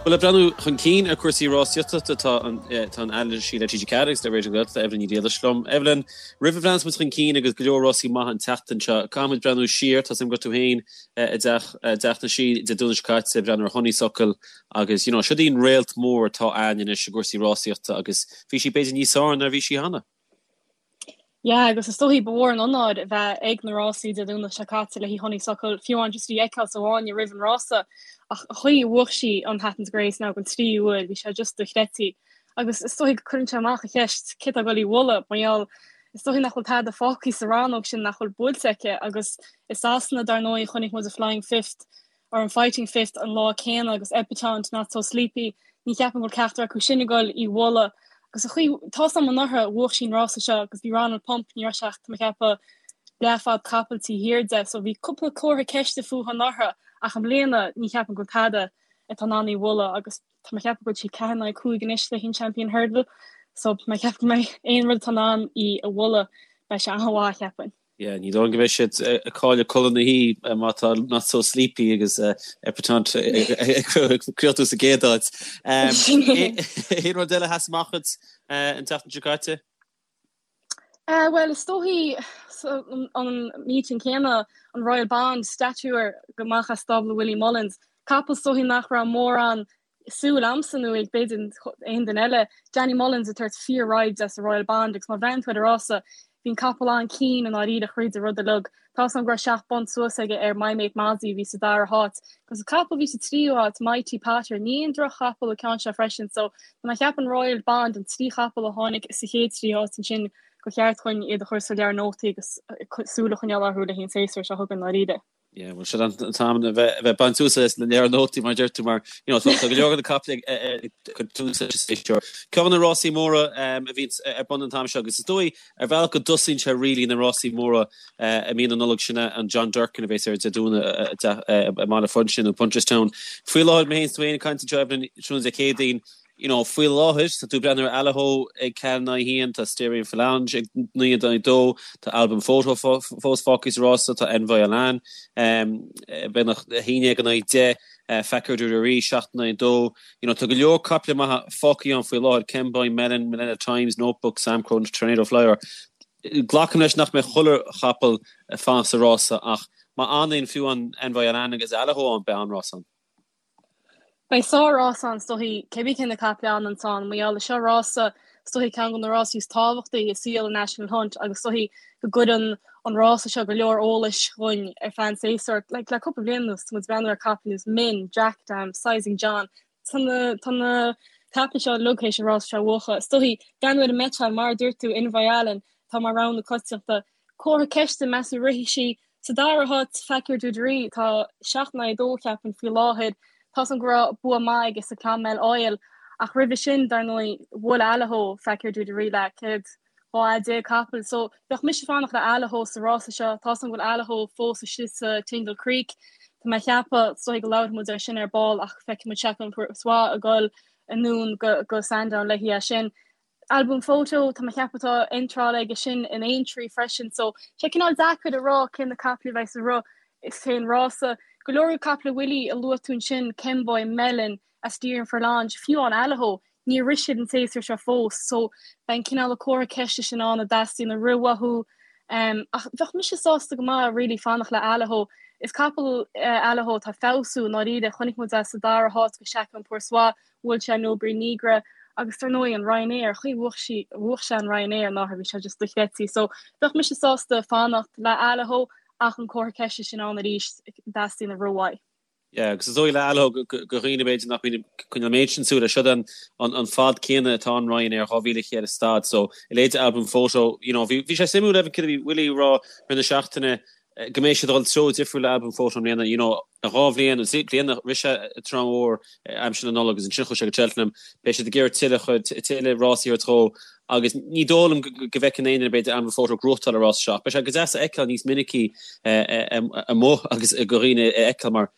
Bhuel, le breathnú chun cinn ar chúrsaí rásaíochta, tá an tá an anailísí le TG4 agus le Raidió na Gaeltachta, Evelyn Ní Riallais liom. Evelyn, roimh a bhreathnas muid chun cinn agus go leor rásaí maithe an tseachtain seo, caithfidh muid breathnú siar, tá 's agam go raibh tú féin i dteach i dTeach na Sí Dé Domhnaigh seo caite ag breathnú ar Honeysuckle agus you know, siod í an réalt mór atá againn anois i gcúrsaí rásaíochta agus bhí sí b'fhéidir níos fearr ná bhí sí cheana. Yeah, agus is dóichí ba mhór an onóir a bheith ag na rásaí Dé Domhnaigh seo caite le haghaidh Honeysuckle, fiú amháin just í a fheiceáil sa bhfáinne roimh an rása, ach an chaoi a bhuaigh sí an Hatton's Grace now don tríú huair, bhí sé just dochreidte. Agus is dóichí go cuireann sé amach an cheist cé atá ag dul í bhualadh, mar gheall is dóichí nach bhfuil tada fágtha sa rannóg sin nach bhfuil buailte aici agus i Sasana dar ndóigh chonaic muid an Flying Fifth or an Fighting Fifth an lá céanna agus Epatante, Not So Sleepy, ní cheapaim go bhfuil ceachtar acu sin ag dul í bhualadh. Agus an chaoi, tá's agam anuraidh, bhuaigh sí an rása seo agus bhí Ronald Pump, ní raibh sé ach, tá mé ag ceapadh, leathfhad capaill taobh thiar de, so bhí cúpla comhartha ceiste fúithi anuraidh ach i mbliana ní cheapaim go bhfuil tada atá in ann í bhualadh agus tá mé ag ceapadh go bhfuil sí 4 in aghaidh 5 anois le haghaidh an Champion Hurdle so tá mé ag ceapadh go mbeidh aon rud atá in ann í a bhualadh, beidh sé an-mhaith, cheapfainn. Yeah, ní dóigh liom go mbeidh siad ag cailleadh codladh na hoíche má tá Not So Sleepy agus Epatante ag críochnú sa gcéad áit. Aon rud eile a sheas amach duit an tseachtain seo caite? Bhuel, is dóichí an meeting céanna, an Royal Bond, Stature amach as stábla Willie Mullins, capall is dóichí nach raibh mórán súil a'msa nó ag b'fhéidir aon duine eile, Danny Mullins ag tabhairt fíor-ride de sa Royal Bond agus má bhreathnaíonn tú ar an rása, bhí an capall an-ciúin i ndáiríre thríd an rud uilig. Tá's a'm go raibh 7 bpunt suas aige ar My Mate Mozzie a bhí sa dara háit. Agus an capall a bhí sa tríú háit, Mighty Potter, ní aon droch-chapall an ceann seo freisin so tá mé ag ceapadh an Royal Bond, an 3 chapall a tháinig sa chéad 3 háit ansin, gur cheart dhúinn iad a chur sa leabhar nótaí agus súil a choinneáil orthu le haghaidh an séasúr seo chugainn i ndáiríre. Yeah, bhuel sin an t-am a bheith a bheith baint úsáid as na leabhar nótaí mar a deir tú mar you know, tá go leor de na caiple ag cur tús leis an séasúr. Ceann de na rásaí móra a bhíonn ar bun an t-am seo agus is dóigh ar bhealach go dtosaíonn sé really na rásaí móra i mí na Nollag sin an John Durkan a bheas ar Dé Domhnaigh i mBaile Phúinse nó Punchestown. Faoi láthair mé féin is tú féin ag caint anseo Evelyn tráthnóna Dé Céadaoin You know, faoi láthair, tá tú ag breathnú ar Allaho ag 4 in aghaidh 1, tá Asterion Forlonge ag 9 in aghaidh 2, tá Al Boum Photo fós fágtha sa rása, tá Envoi Allen beagnach 11 in aghaidh 10, Fakir D'Oudairies 7 in aghaidh 2. You know, tá go leor caiple maithe fágtha ann faoi láthair, Kemboy, Melon, Millennial Times, Notebook, Samcro, Tornado Flyer. Glacaim leis nach mbeidh chuile chapall ag fanacht sa rása ach má fhanann fiú an Envoi Allen agus Allaho ann, beidh an-rás ann. Beidh sár-rás ann, is dóichí, cébí cé na caiple a fhananns ann, mar gheall seo rása, is dóichí ceann de na rásaí is tábhachtaí i saol an National Hunt agus is dóichí go gcuireann an rása seo go leor eolais dhúinn ar feadh an tséasúir. Like, le cúpla bliain anuas, tá muid ag breathnú ar caiple ar nós Min, Djakadam, Sizing John, tá na, tá na caiple seo uilig théis an rása seo a bhuachan. Is dóichí, breathnú ar an mbeiteáil, mar a dúirt tú, Envoi Allen, tá mar rogha na coitianta. Comhartha ceiste, meas tú rithfidh sí Sa dara háit, Fakir D'Oudairies, tá 7 in aghaidh 2, cheapfainn, faoi láthair. Tá's agam go raibh bua maith aige sa Clonmel Oil, ach roimhe sin, dar ndóigh, bhuail Allaho Fakir D'Oudairies le céad 12 fhad capaill. So, bheadh mise ag fanacht le Allaho sa rása seo. Tá's agam go bhfuil Allaho fós istigh sa Tingle Creek. Tá mé ag ceapadh, is dóigh go labharfaidh muid air sin ar ball, ach feicfidh muid Chacun Pour Soi ag dul anonn go Sandown léi é sin. Al Boum Photo, tá mé ag ceapadh tá iontráil aige sin in Aintree freisin so sé cineál deacair a rá cé na caiple a bheidh sa roth cén rása. Go leor caiple Willie a luaigh tú ansin, Kemboy, Melon, Asterion Forlonge, fiú amháin Allaho, níor rith siad an séasúr seo fós so beidh an cineál comhartha ceiste sin ann a dteastaíonn a rith uathu. Ach bheadh mise sásta go maith really fanacht le Allaho. Is capall é Allaho atá ag feabhsú i ndáiríre, chonaic muid é sa dara háit go Chacun Pour Soi Bhuail sé Nobri Nigra agus dar ndóigh an Ryanair, an chaoi a bhuaigh sí, bhuaigh sé an Ryanair anuraidh, bhí sé just dochreidte. So bheadh mise sásta fanacht le Allaho ach an comhartha ceiste sin ann arís, dteastaíonn a rith uaidh. Yeah, agus is dóigh le Allaho do dhaoine b'fhéidir nach mbíonn ag coinneáil an méid sin súile, siod an an fad céanna atá an Ryanair, 2,100 stad, so a leithéid Al Boum Photo, you know, bhí sé suimiúil Evan céard a bhí Willie ag rá rith na seachtaine, go mbeidh siad ag dul treo difriúil le Al Boum Photo i mbliana, you know, dhá bhliain, nó trí bliana, rith sé an tSraith Mhór aimsir na Nollag agus ansin chuaigh sé go Cheltenham, beidh siad ag iarraidh tuilleadh, tuilleadh rásaí a thabhairt dhó agus ní dóigh liom go bhfeiceann aon duine b'fhéidir Al Boum Photo ag gnóthachtáil an rása seo ach beidh sé go deas a fheiceáil níos minicí amuigh agus do dhaoine a fheiceáil mar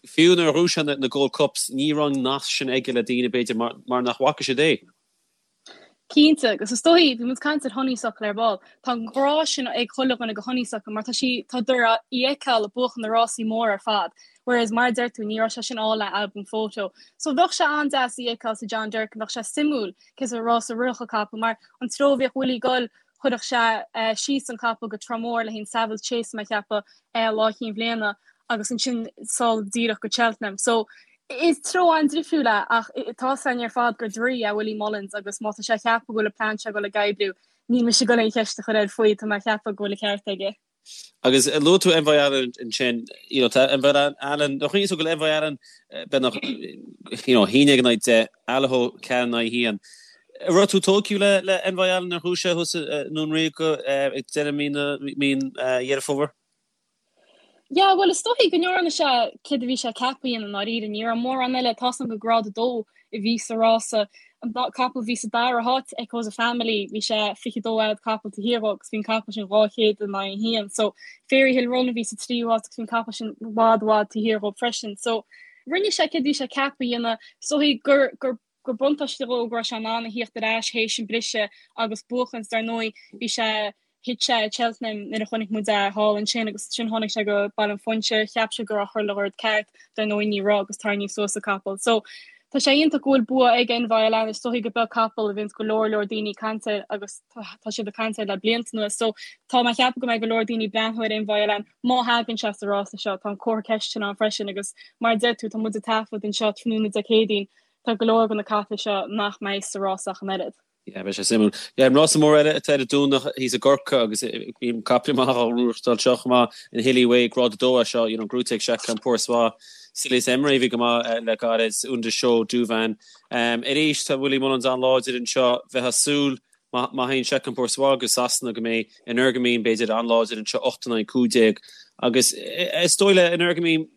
fiú nuair a ghnóthaigh sé na Gold Cups ní raibh an nasc sin aige le daoine b'fhéidir mar nach bhfaca siad é. Cinnte, agus is dóichí, bhí muid ag caint ar Honeysuckle ar ball, tá an grá sin ag chuile dhuine go Honeysuckle mar tá sí, tá tú í a fheiceáil ag buachan na rásaí móra ar fad, whereas mar a deir tú, ní raibh sé sin ann le Al Boum Photo. So bheadh sé an-deas í a fheiceáil sa John Durkan, bheadh sé suimiúil cén sórt rása a rithfeadh an capall mar an treo a bhíodh Willie ag dul, chuirfeadh sé síos an capall go Tramore le haghaidh an Savills Chase mé ag ceapadh lá Chinn Bhliana agus ansin sall díreach go Cheltenham. So is treo an-difriúil é ach tá 's againn ar fad gur draoi é Willie Mullins agus má tá sé ag ceapadh go bhfuil an plean seo ag dul ag oibriú, níl mise ag dul aon cheist a chur air faoi, tá mé ag ceapadh go bhfuil an ceart aige. Agus luaigh tú Envoi Allen ansin, you know, tá Envoy Allen, nó chuimhnigh tú go bhfuil Envoy Allen beagnach, you know, 11 in aghaidh 10, Allaho 4 in aghaidh 1. An raibh tú tógtha le, le Envoy Allen ar chúis é thuas i nDún Ríoga ag deireadh mí na, mí Dheireadh Fómhair? Yeah, bhuel is dóichí go ndearna sé céard a bhí sé ceaptha a dhéanamh i ndáiríre. Ní raibh mórán eile, tá's agam gur grád 2 a bhí sa rása. An capall a bhí sa dara háit, Echoes of Family, bhí sé 22 fhad capall taobh thiar dhó agus bhí an capall sin 200 in aghaidh 1. So Fairyhill Run a bhí sa tríú háit agus bhí an capall sin i bhfad i bhfad taobh thiar dhó freisin. So rinne sé céard a bhí sé ceaptha a dhéanamh. Is dóichí gur gur gur buntáiste dhó go raibh sé in ann a thíocht ar ais théis an briseadh agus buachaint. Dar ndóigh, bhí sé, thit sé i Cheltenham nuair a chonaic muid é thall ansin agus ansin tháinig sé go Baile an Phúinse, cheap sé go raibh chuile rud ceart, dar ndóigh ní raibh agus tarraingíodh suas an capall. So, tá sé iontach go bhfuil bua ag Envoi Allen, is dóichí go beag capall a bhíonns go leor leor daoine ag caint air agus tá siad ag caint air le blianta anuas. So, tá mé ag ceapadh go mbeidh go leor daoine ag breathnú ar Envoi Allen má thagann sé sa rása seo, tá an comhartha ceiste sin ann freisin agus mar a deir tú, tá muid ag taifead anseo tráthnóna Dé Céadaoin, tá go leor de na caiple seo nach mbeidh sa rása ach an oiread. Yeah, beidh sé suimiúil. Yeah, an rása mór eile atá ar an Domhnach thíos i gCorcaigh agus bíonn caiple maith á ghnóthachtáil seo chomh maith, an Hilly Way, grád 2 é seo, you know, gnóite ag Chacun Pour Soi, Silius Emery a bhí go maith le gairid, Un de Chaux, Douvan. Arís tá Willie Mullins an-láidir anseo, bheifeá ag súil Má théann Chacun Pour Soi go Sasana go mbeidh Energumene b'fhéidir an-láidir anseo 8 in aghaidh 15 agus is dóigh le Energumene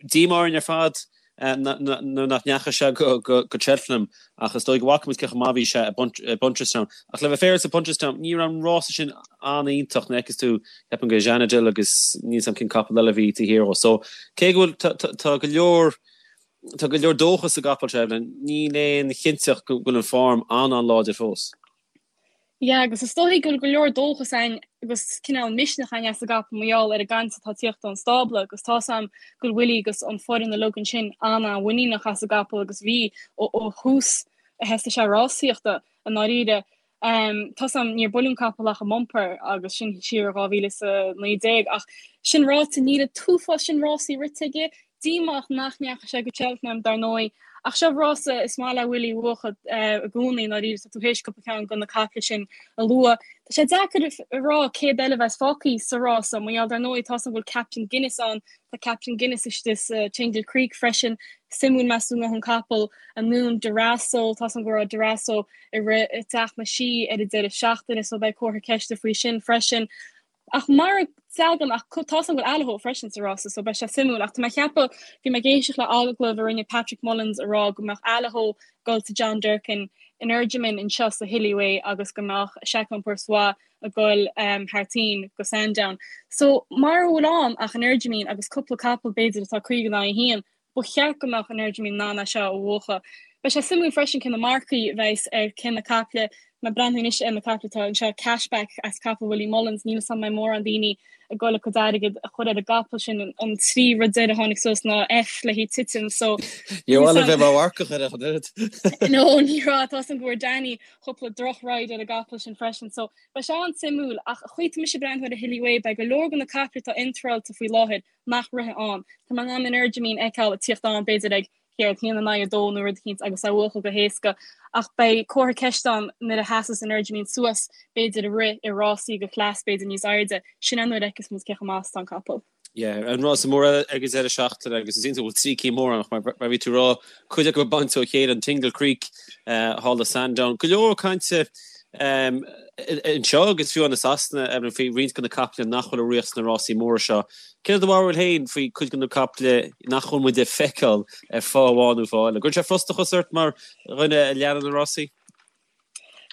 díomá orainn ar fad nuair nach ndeachaigh sé go Cheltenham ach is dóigh go bhfaca muid cé chomh maith a bhí sé i Punchestown. Ach le bheith féaráilte i Punchestown ní raibh an rása sin an-iontach an bhfeiceann tú ceapaim go Janidil agus níl 's a'm cén capall eile a bhí taobh thiar dhó. So cé go bhfuil tá go leor Tá go leor dóchas sa gcapall seo, Evelyn. Níl aon chinnteacht go bhfuil an form an-an-láidir fós. Yeah, agus is dóichí go bhfuil go leor dóchas ann agus cineál misneach ann as an gcapall mar gheall ar an gcaint atá ag tíocht ón stábla agus tá's a'm go bhfuil Willie agus an foireann uilig ansin an-an-mhuiníneach as an gcapall agus bhí ó ó thús a thosaigh sé rásaíochta i ndáiríre. Tá's a'm níor buaileadh an capall ach i mbumper agus sin siar i 2019 ach sin ráite níl an t-uafás sin rásaí rite aige. Díomách nach ndeachaigh sé go Cheltenham dar ndóigh ach seo rása is maith le Willie a bhuachan i gcónaí i ndáiríre tá tú théis cúpla ceann de na caiple sin a lua. Tá sé deacair a rá céard eile a bheas fágtha sa rása mar gheall dar ndóigh tá's a'm go bhfuil Captain Guinness ann, tá Captain Guinness istigh sa Tingle Creek freisin. Suimiúil meas tú an ngabhfaidh an capall anonn Darasso, tá's a'm go raibh Darasso ag rith i dTeach na Sí ar an deireadh seachtaine so beidh comhartha ceiste faoi sin freisin. Ach mara dtagann ach tá's a'm go bhfuil Allaho freisin sa rása so beidh sé suimiúil ach tá mé ag ceapadh, bhí mé ag éisteacht le agallamh a rinne Patrick Mullins a rá go mbeadh Allaho ag dul sa John Durkan Energumene anseo sa Hilly Way agus go mbeadh Chacun Pour Soi ag dul thar toinn go Sandown. So mara bhfuil ann ach Energumene agus cúpla capall b'fhéidir atá 50 in aghaidh 1, Ba cheart go mbeadh Energumene in ann é seo a bhuachan. Beidh sé suimiúil freisin cé na marcaí a bheas ar cé na caiple. Má breathnaíonn anois ar na caiple atá anseo, Cashback as capall Willie Mullins, níl 'fhios a'm an mbeidh mórán daoine ag dul a gcuid airgid a chur ar an gcapall sin. An trí rud deiridh a tháinig suas ná F le haghaidh titim so Níor mhaith liom bheith mar mharcach air ach an oiread. No, ní raibh. Tá's a'm go bhfuair Danny cúpla droch ride ar an gcapall sin freisin so beidh sé an-suimiúil ach an chaoi atá mise ag breathnú ar an Hilly Way beidh go leor de na caiple atá iontráilte faoi láthair nach rithfidh ann. Tá mé in ann Energumene a fheiceáil ag tíocht ann b'fhéidir ag céard, 1 in aghaidh 2 nó rud eicínt agus é a bhuachan go héasca ach beidh comhartha ceiste ann nuair a sheasas Energumene suas b'fhéidir ag rith i rásaí de chleas b'fhéidir níos airde. Sin é nuair a fheicfeas muid cé chomh maith is atá an capall. Yeah, an rása mór eile ag an deireadh seachtaine agus is iontach go bhfuil trí cinn mór ann ach mar a bhí tú ag rá, cuid acu ag baint ó chéile, an Tingle Creek, thall i Sandown. Go leor cainte anseo agus fiú i Sasana Evelyn faoi roinnt de na caiple nach bhfuil ag rith sna rásaí móra seo. Céard é do bharúil féin faoi cuid de na caiple nach bhfuil muid ag feiceáil ar fáth amháin nó fáth eile? Gcuireann sé frustrachas ort mar dhuine a leanann na rásaí?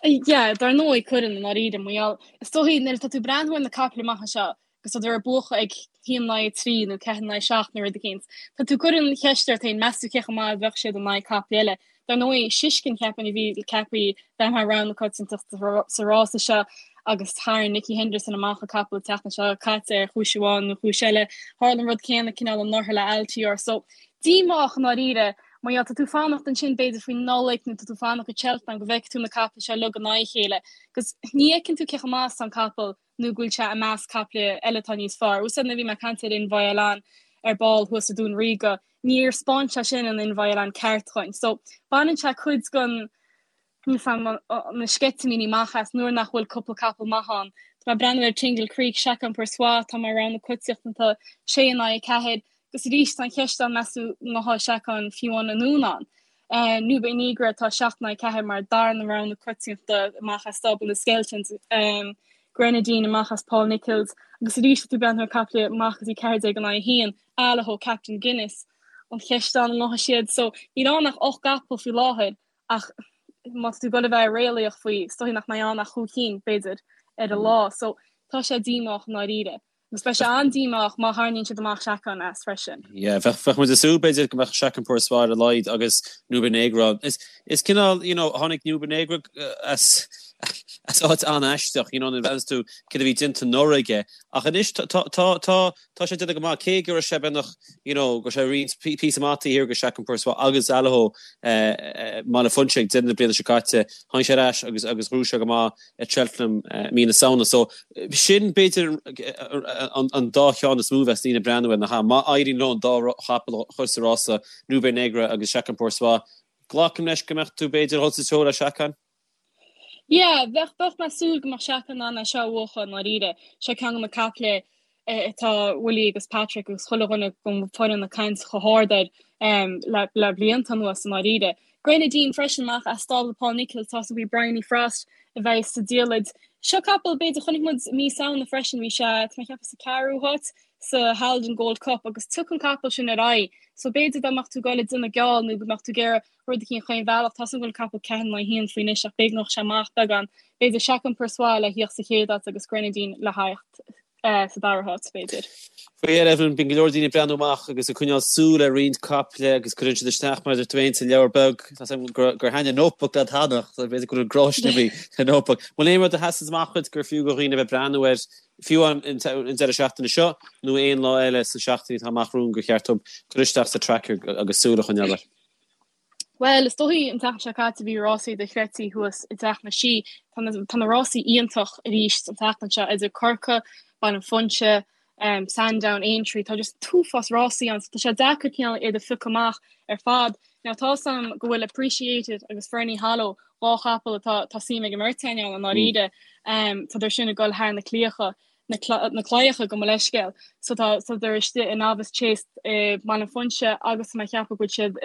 Yeah, dar ndóigh cuireann i ndáiríre, mar gheall, is dóichí nuair atá tú ag breathnú ar na caiple amach anseo agus tá siad ag buachan ag 1 in aghaidh 3 nó 4 in aghaidh 7 nó rud eicínt, tá tú ag cur an cheist ort féin, meas tú cé chomh maith a bheadh siad in aghaidh caiple eile? Dar ndóigh, Shishkin cheapfainn a bhí ceaptha bheith mar rogha na coitiantachta sa rása seo agus tharraing Nicky Henderson amach an capall an tseachtain seo caite ar chúis amháin nó chúis eile. Tharla an rud céanna cineál anuraidh le Altior. So, díomách i ndáiríre mar gheall tá tú fanacht ansin b'fhéidir faoin Nollaig nó tá tú fanacht go Cheltenham go bhfeicfidh tú na caiple seo uilig in aghaidh a chéile agus ní fheiceann tú cé chomh maith is atá an capall nó go bhfuil sé i measc caiple eile atá níos fearr. Úsáid nuair a bhí mé ag caint ar Envoi Allen ar ball thuas i Dún Ríoga, níor 'spáin sé sin an Envoi Allen ceart dhuinn. So, baineann sé cuid den, níl 's a'm, na sceitimíní amach as nuair nach bhfuil cúpla capall maith ann. Tá mé ag breathnú ar Tingle Creek, Chacun Pour Soi, atá mar rogha na coitiantachta, sé in aghaidh 4, agus arís tá an cheist ann meas tú an ngabhfaidh Chacun fiú amháin anonn ann. Nube Negra atá 7 in aghaidh 4 mar darna rogha na coitiantachta amach as stábla na Skeltons, Grenadine amach as Paul Nicholls agus arís tá tú ag breathnú ar caiple amach go dtí 14 in aghaidh 1, Allaho, Captain Guinness. An cheist ann an ngabhfaidh siad so níl ann ach 8 gcapall faoi láthair ach má tá tú ag dul a bheith réalaíoch faoi is dóigh nach mbeidh ann ach chúig cinn b'fhéidir ar an lá so tá sé díomách i ndáiríre. Agus beidh sé an-díomách má tharraingíonn siad amach Chacun as freisin. Yeah, bheadh, bheadh muid ag súil b'fhéidir go mbeadh Chacun Pour Soi ar a laghad agus Nube Negra. Is, is cineál, you know, tháinig Nube Negra as, as áit an-aisteach, you know, nuair a bhreathnaíos tú céard a bhí déanta anuraidh aige. Ach anois tá, tá, tá, tá, tá sé déanamh go maith, cé go raibh sé beagnach, you know, go raibh sé roinnt píosa maith taobh thiar de Chacun Pour Soi agus Allaho i mBaile Phúinse ag deireadh na bliana seo caite. Tháinig sé ar ais agus, agus ghnóthaigh sé go maith. at Cheltenham mí na Samhna. So sin b'fhéidir an dá cheann is mó a bheas daoine ag breathnú air nach ea? Má éiríonn leo an dá chapall a chur sa rása, Nube Negra agus Chacun Pour Soi, glacaim leis go mbeadh tú b'fhéidir ag dul sa treo le Chacun? Yeah, bheadh, bheadh mé ag súil go mbeadh Chacun in ann é seo a bhuachan i ndáiríre. Seo ceann de na caiple atá Willie agus Patrick agus chuile dhuine den foireann ag caint chomh hard air le blianta anuas i ndáiríre. Grenadine freisin amach as stábla Paul Nicholls, tá súil agam Bryony Frost a bheidh sa diallait. Seo capall b'fhéidir chonaic muid mí Samhna freisin, bhí sé tá mé ag ceapadh sa ceathrú háit sa Haldon Gold Cup agus tiocfaidh an capall sin ar aghaidh so b'fhéidir dá mbeadh tú ag dul ag déanamh geall nó go mbeadh tú ag iarraidh rud eicínt chaon bhealach. Tá súil agam go bhfuil an capall 4 in aghaidh 1 faoi anois ach b'fhéidir go ngabhfadh sé amach beagán. B'fhéidir Chacun Pour Soi le thíocht sa chéad áit agus Grenadine le theacht sa dara háit, b'fhéidir. Faoi dheireadh, Evelyn, bíonn go leor daoine ag breathnú amach agus ag coinneáil súil ar roinnt caiple agus cuireann siad isteach mar a deir tú féin sa leabhar beag. Tá 's agam gur thaitin an notebook leat cheana, so b'fhéidir go bhfuil gráisne sa notebook. Bhfuil aon rud a sheasann amach dhuit gur fiú do dhaoine a bheith ag breathnú air, fiú an deireadh seachtaine seo nó aon lá eile sna seachtainí atá amach romhainn gur cheart dóibh cur isteach sa tracker agus súil a choinneáil air? Bhuel, is dóichí an tseachtain seo caite bhí rásaí dochreidte thuas i dTeach na Sí. Tá na, tá na rásaí iontach arís an tseachtain seo idir Corcaigh, Baile an Phúinse, um, Sandown, Aintree, tá just t-uafás rásaí ann, so tá sé deacair cineál iad a phiocadh amach ar fad. Now tá 's a'm go bhfuil Appreciate It agus Ferny Hollow, dhá chapall atá tá suim ag an mbeirt againn ann i ndáiríre, um, tá siad sin ag dul thar na claíocha. na claíocha gabh mo leithscéal. So tá siad istigh i Novice Chase i mBaile an Phúinse agus tá mé ag ceapadh go bhfuil siad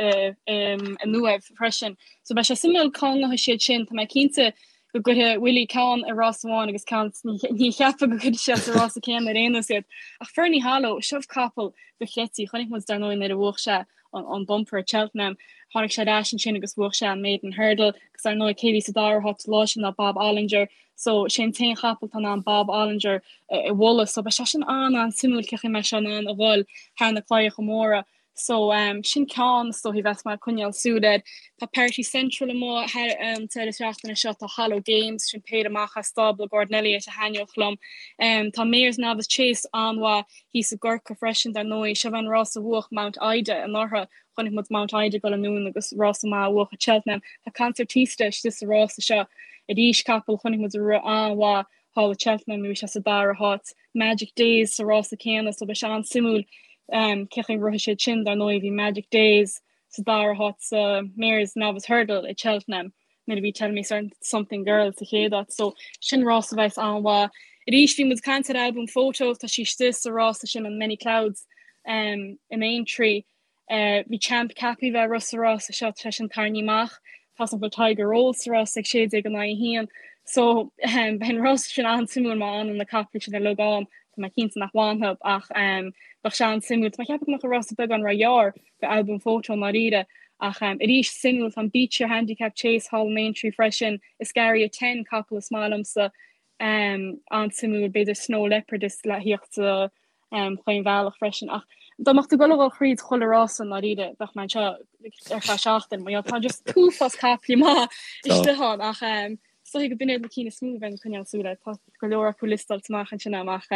i nUaimh freisin. So beidh sé suimiúil cá ngabhfaidh siad sin. Tá mé cinnte go gcuirfidh Willie ceann i rás amháin agus ceann ní cheapfainn go gcuirfidh sé sa rása céanna ar aon nós iad. Ach Ferny Hollow, seo capall dochreidte. Chonaic muid dar ndóigh nuair a bhuaigh sé an bumper at Cheltenham. Tháinig sé ar ais ansin agus bhuaigh sé an Maiden Hurdle agus dar ndóigh cé bhí sa dara háit lá sin ná Bob Olinger. So sé an t-aon chapall atá in ann Bob Olinger a bhualadh. So beidh sé sin an-an-suimiúil cén chaoi a mbeidh sé in ann a dhul thar na claíocha móra. So um, sin ceann is dóichí bheas mé ag coinneáil súil air. Tá Party Central amuigh thar an deireadh seachtaine seo, tá Hollow Games, sin péire amach as stábla Gordon Elliott a thaitneodh liom. Um, tá Mares Novice Chase an-mhaith thíos i gCorcaigh freisin dar ndóigh. Seo an rás a bhuach Mount Ida anuraidh. Chonaic muid Mount Ida ag dul anonn agus rása maith a bhuach at Cheltenham. Tá Concertista istigh sa rása seo arís, capall chonaic muid a rith an-mhaith thall at Cheltenham bhí sé sa dara háit. Magic Days sa rása céanna so beidh sé an-suimiúil cén chaoi a rithfidh siad sin. Dar ndóigh bhí Magic Days sa dara háit sa Mares Novice Hurdle at Cheltenham. nuair a bhí Tell Me Something Girl sa chéad áit. So sin rás a bheas an-mhaith. Arís bhí muid ag caint ar Al Boum Photo, tá sí istigh sa rása sin an Many Clouds um, in Aintree. Uh, bhí Champ ceaptha bheith ag rith sa rása seo tá sé sin tarraingthe amach. Tá an bhfuil Tiger Roll sa rás ag 16 in aghaidh 1. So um, beidh an rás sin an-suimiúil má fhanann na caiple sin uilig ann. Tá mé cinnte nach bhfanfaidh ach um, bheadh sé an-suimiúil. Tá mé ag ceapadh go mbeadh an rása beagán róghearr do Al Boum Photo i ndáiríre. Ach arís, suimiúil, tá an Becher Handicap Chase thall in Aintree freisin, Escaria Ten, capall is maith liomsa, an-suimiúil, b'fhéidir Snow Leopard is le thíocht sa chaon bhealach freisin. Ach Dá mbeadh tú ag dul a dhul thríd chuile rása i ndáiríre bheadh mé anseo ar feadh seachtain mar tá just an t-uafás caiple maith istigh ann ach is dóigh go b'in iad na cinn is mó a bheinn ag coinneáil súil air. Tá go leor acu liostáilte amach ansin agam ach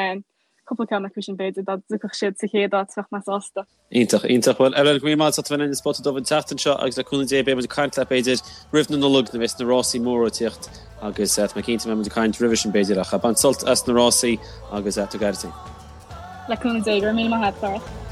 cúpla ceann acu sin b'fhéidir dá dtiocfadh siad sa chéad áit bheadh mé sásta. Iontach, iontach. Bhuel, Ellen, go raibh míle maith agat as ucht a bheith linn i Spota Dubh an tseachtain seo agus le cúnamh Dé beidh muid ag caint leat b'fhéidir roimh na Nollag nuair a bheas na rásaí móra ag tíocht agus tá mé cinnte go mbeidh muid ag caint roimhe sin b'fhéidir ach bain sult as na rásaí agus tabhair aire duit féin. Le cúnamh Dé, go raibh míle maith agat, Darach.